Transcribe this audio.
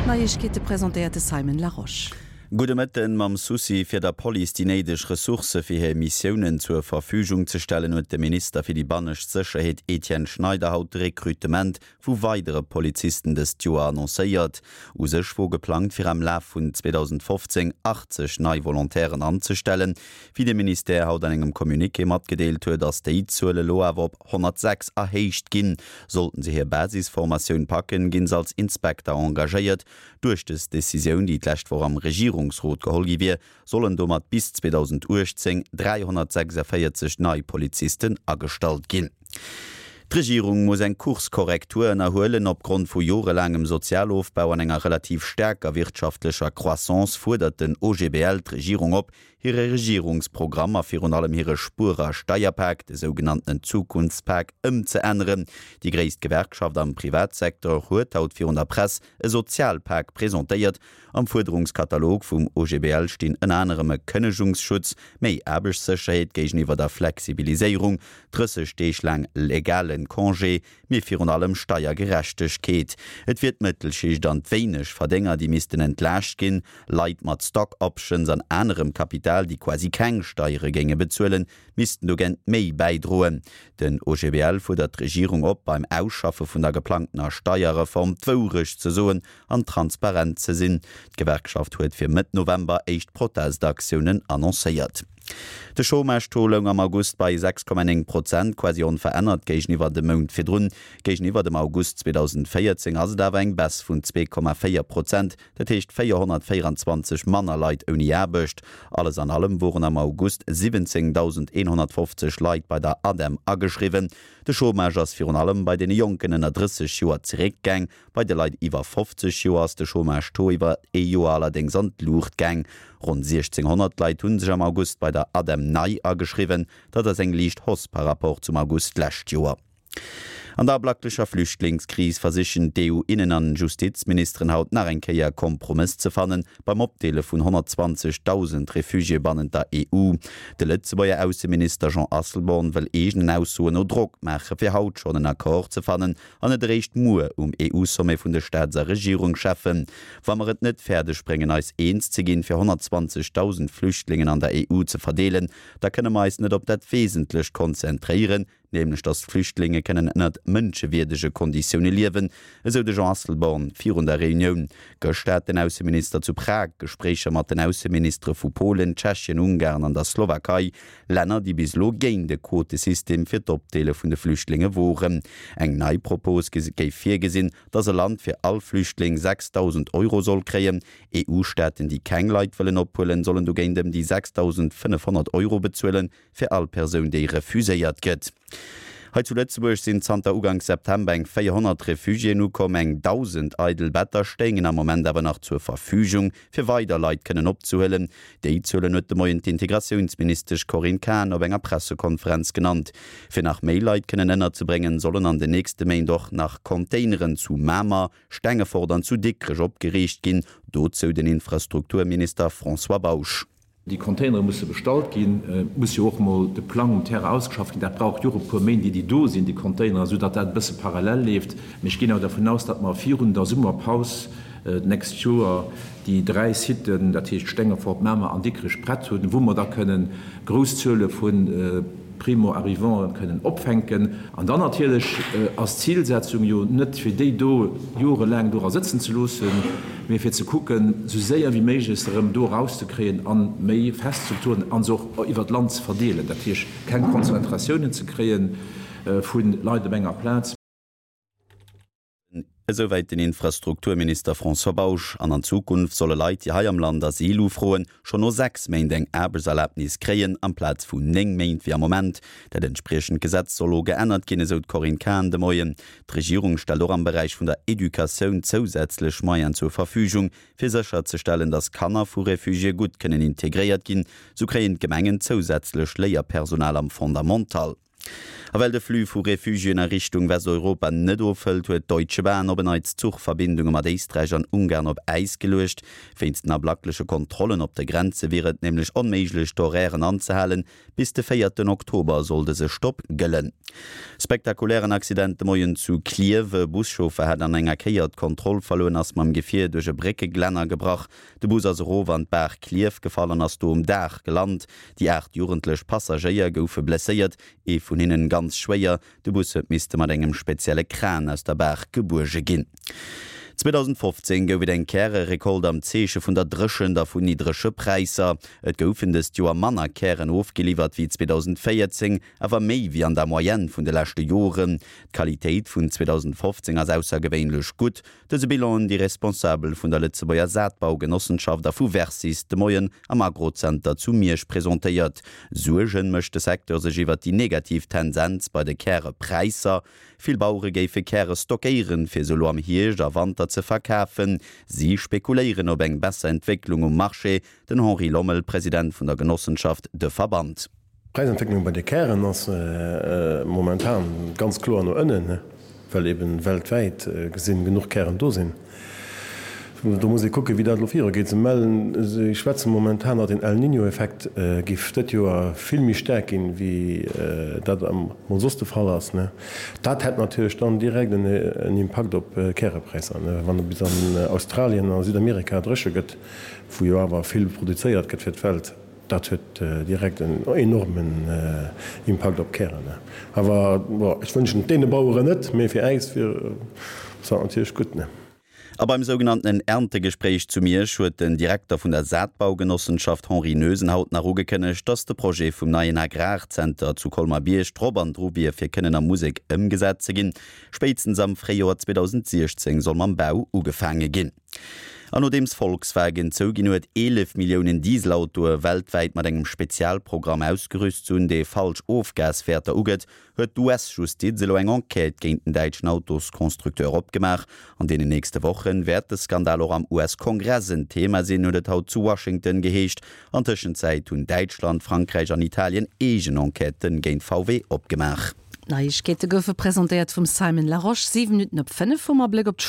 D'Neiegkeete presentéiert de Simon Larosche. Gudde Mëtten. Mam Souci fir der Police déi néideg Ressourcë fir hir Missiounen zur Verfügung ze stellen, huet de Minister fir déi bannescht Sécherheet Etienne Schneider haut de Rekrutement vu weidere Polizisten dëst Joer annoncéiert. U sech wor geplangt fir am Laf vun 2015 80 nei Volontairen anzestellen. Wéi de Ministère haut an engem Communiqué matgedeelt huet, ass déi Zuel elo awer op 106 erhéicht ginn. Sollten se hir Basisformatioun packen, ginn se als Inspekter engagéiert. Duerch dës Decisioun, déi d'lescht Woch am Regierungsrot geholl gi wier, sollen domat bis 2018 346 nei Polizisten agestallt ginn. D'Regierung muss eng Kurskorrektur ënnerhuelen. Opgrond vu jorelaangem Sozialofbau an enger relativ staarker wirtschaftlecher Croissance fuerdert den OGBL d'Regierung op, hire Regierungsprogramm a virun allem hire Spuer a Steierpak, de sougenanntenen Zukunftspak, ëmzeänneren. Déi gréisst Gewerkschaft am Privatsecteur huet haut virun der Press e Sozialpak presentéiert, Am Fuerderungskatalog vum OGBL stinn ënner anerem e Kënnegungsschutz, méi Aarbechtssécherheet géigeniwwer der Flexibiliséierung, 30 Deeg laang legale Congé, mee virun allem Steiergerechtegkeet. Et wier d'Mëttelschicht an d'Wéinegverdénger, déi missten entlaascht ginn. Leit mat Stock Options an anerem Kapital, déi quasi keng Steiere géinge bezuelen, missten dogéint méi bäidroen. Den OGBL fuerdert d'Regierung op, beim Ausschaffe vun der geplangtener Steierreform d'Wourecht ze soen an transparent ze sinn. D'Gewerkschaft huet fir Mëtt November éischt Protestaktiounen annoncéiert. De Chômage-Taux loung am August bei 6,9 Prozent, quasi onverännert géigeniwwer dem Mount virdrun. Géigeniwwer dem August 2014 ass et awer eng Baisse vun 2,4 Prozent, dat heescht 424 manner Leit ouni Aarbecht. Alles an allem woren am August 17.150 Leit bei der ADEM ageschriwwen. De Chômage ass virun allem bei deene Jonken ënner 30 Joer zeréckgaang. Bei de Leit iwwer 50 Joer ass de Chômage-Taux iwwer ee Joer allerdéngs an d'Luucht gaang. Ronn 1.600 Leit hu sech am August bei der ADEM nei ageschriwwen. Dat ass eng liicht Hausse par Rapport zum August d'lescht Joer. An der ablacklecher Flüchtlingskris versichen d'EU-Innen an Justizministeren haut nach eng Kéier e Kompromëss ze fannen beim Opdeele vun 120.000 Refugiéë bannent der EU. De Lëtzebuerger Ausseminister Jean Asselborn wëll eegenen Aussoen no Drock maache fir haut schonn en Accord ze fannen an net eréischt muer um EU-Sommet vun de Staats a Regierungscheffen. Wa mer et net fäerdeg bréngen eis eens ze ginn, fir 120.000 Flüchtlingen an der EU ze verdeelen, da kënne mer eis net op dat Wesentlecht konzentréieren, nämlech datt d'Flüchtlinge kënnen ënnert mënschewierdege Konditioune liewen, esou de Jean Asselborn virun der Reunioun. Gëschter hat den Ausseminister zu Prag Gespréicher mat den Ausseministere vu Polen, Tschechien, Ungarn an der Slowakei. Länner, déi bis elo géint e Quotesystem fir d'Opdeele vun de Flüchtlinge woren. Eng nei Propos géif virgesinn, datt e Land fir all Flüchtling 6.000 Euro soll kréien. EU-Staaten, déi keng Leit wëllen ophuelen, sollen dogéint ëm déi 6.500 Euro bezuelen, fir all Persoun, déi refuséiert gëtt. Hei zu Lëtzebuerg sinn zanter Uganks September eng 400 Refugiéen ukomm. Eng 1.000 eidel Better stéingen am Moment awer nach zur Verfügung, fir weider Leit kënnen opzehuelen. Déi Zuelen huet de Moien d'Integratiounsministesch Corinne Cahen op enger Pressekonferenz genannt. Fir nach méi Leit kënnen ënnerzebréngen, sollen an den nächste Méint och nach Containeren zu Mamer, Stengefort an zu Dikrech opgeriicht ginn. Dozou den Infrastrukturminister François Bausch. Déi Containere musse bestallt ginn. Et muss jo och emol de Plang um Terrain ausgeschafft ginn. Dat brauch jo och e puer Méint, ier déi do sinn, déi Containeren, esou datt dat e bësse parallel leeft. Mee ech ginn awer dervun aus, datt mer virun der Summerpaus d'nächst Joer déi 3 Siten, dat heescht Stengefort, Mamer an Dikrech, prett hunn, wou mer da kënnen grouss Zuele vu Primo-arrivanten kënnen opfänken. An dann natierlech ass d'Zilsetzung jo net, fir déi do jorelaang dora sëtzen ze loossen, mee fir ze kucken, esou séier wéi méiglech se erëm do erauszekréien a méi fest Strukturen a se och iwwer d'Land ze verdeelen, dat heescht keng Konzentratiounen ze kréie vu Leit op enger Plaz. Esouwäit den Infrastrukturminister François Bausch. An an Zukunft solle Leit, déi hei am Land Asyl ufroen, schonn no 6 Méint eng Aarbechtserlabnis kréien, amplaz vun 9 Méint wéi am Moment. Dat entspriechend Gesetz soll elo geännert ginn, esou d'Corinne Cahen de Moien. D'Regierung stellt och am Beräich vun der Educatioun zousätzlech Moyenen zur Verfügung, fir sécherzestellen, datt Kanner vu Refugiéë gutt kënnen integréiert ginn. Sou kréien d'Gemengen zousätzlech Léierpersonal am Fondamental. A well de Flux vu Refugiéen a Richtung Westeuropa net ofhëlt, huet d'Deutsche Bahn op en Neits d'Zuchverbindunge mat Éisträich an Ungarn op Äis geluecht. Wéinst den ablackleche Kontrollen op de Grenze wier et nämlech onméiglech, d'Horairen anzehalen. Bis de véierten Oktober soll dëse Stopp gëllen. Spektakulären Accident de Moien zu Klierf. E Buschauffer hat an enger Kéier d'Kontroll verluer an ass mam Gefier duerch e Bréckeglänner gebrach. De Bus ass erof an d'Baach Klierf gefall an ass do um Daach gelant. Déi 8 jugendlech Passagéier goufe blesséiert, ee vun hinnen ganz schwéier. De Bus huet misste mat engem spezielle Kran aus der Baach gebuerge ginn. 2015 gouf et eng Käre-Recolte am Zeeche vun der Dréchent a vun niddrege Präisser. Et goufen dëst Joer manner Kären ofgeliwwert wéi 2014, awer méi wéi an der Moyenne vun de leschte Joren. D'Qualitéit vun 2015 ass aussergewéinlech gutt. Dëse Bilan hunn déi Responsabel vun der Lëtzebuerger Saatbaugenossenschaft a vu Versis de Moien am Agrozenter zu Miersch presentéiert. Suergen mécht de Secteur sech iwwert déi negativ Tendenz bei de Kärepräisser. Vill Bauere géife Käre stockéieren, fir se elo am Hierscht a Wanter ze verkafen. Si spekuléieren op eng besser Entwécklung um Marché. Den Henri Lommel, President vun der Genossenschaft De Verband. D'Präisentwécklung bei de Kären ass momentan ganz kloer no ënnen, well eben weltwäit gesinn genuch Kären do sinn. Do muss ee kucken, wéi dat elo virugeet. Se mellen, se schwätze momentan, datt den El Niño-Effekt géif dëtt Joer vill méi staark ginn, wéi dat emol soss de Fall ass. Dat hätt natierlech dann direkt en Impakt op d'Kärepräisser, wann et bis an Australien a Südamerika dréche gëtt, wou jo awer vill produzéiert gëtt fir d'Welt. Dat huet direkt en enormen Impakt op d'Kären. Awer bon, ech wënschen et deene Baueren net, mee fir äis wier ass dat natierlech gutt. A beim sougenanntenen Erntegespréich zu Miersch huet den Direkter vun der Saatbaugenossenschaft Henri Noesen haut nach ugekënnegt, datt de Projet vum neien Agrarzenter zu Colmer-Bierg drop an dru wier fir kënnen a Musek ëmgesat ze ginn. Spéitstens am Fréijoer 2016 soll mam Bau ugefaange ginn. An nodeems Volkswagen zouginn huet, 11 Milliounen Dieselautoe weltwäit mat engem Spezialprogramm ausgerüst ze hunn, dee falsch Ofgaswäerter ugëtt, huet d'US-Justiz elo eng Enquête géint den däitschen Autosconstructeur opgemaach. An deenen nächste Woche wäert de Skandal och am US-Kongress en Thema sinn, huet et haut zu Washington geheescht. An Tëschenzäit hunn Däitschland, Frankräich an Italien eegen Enquêtë géint VW opgemaach. D'Neiegkeete goufe presentéiert vum Simon Larosche. 7 Minutten op 5 hu mer Bléck op.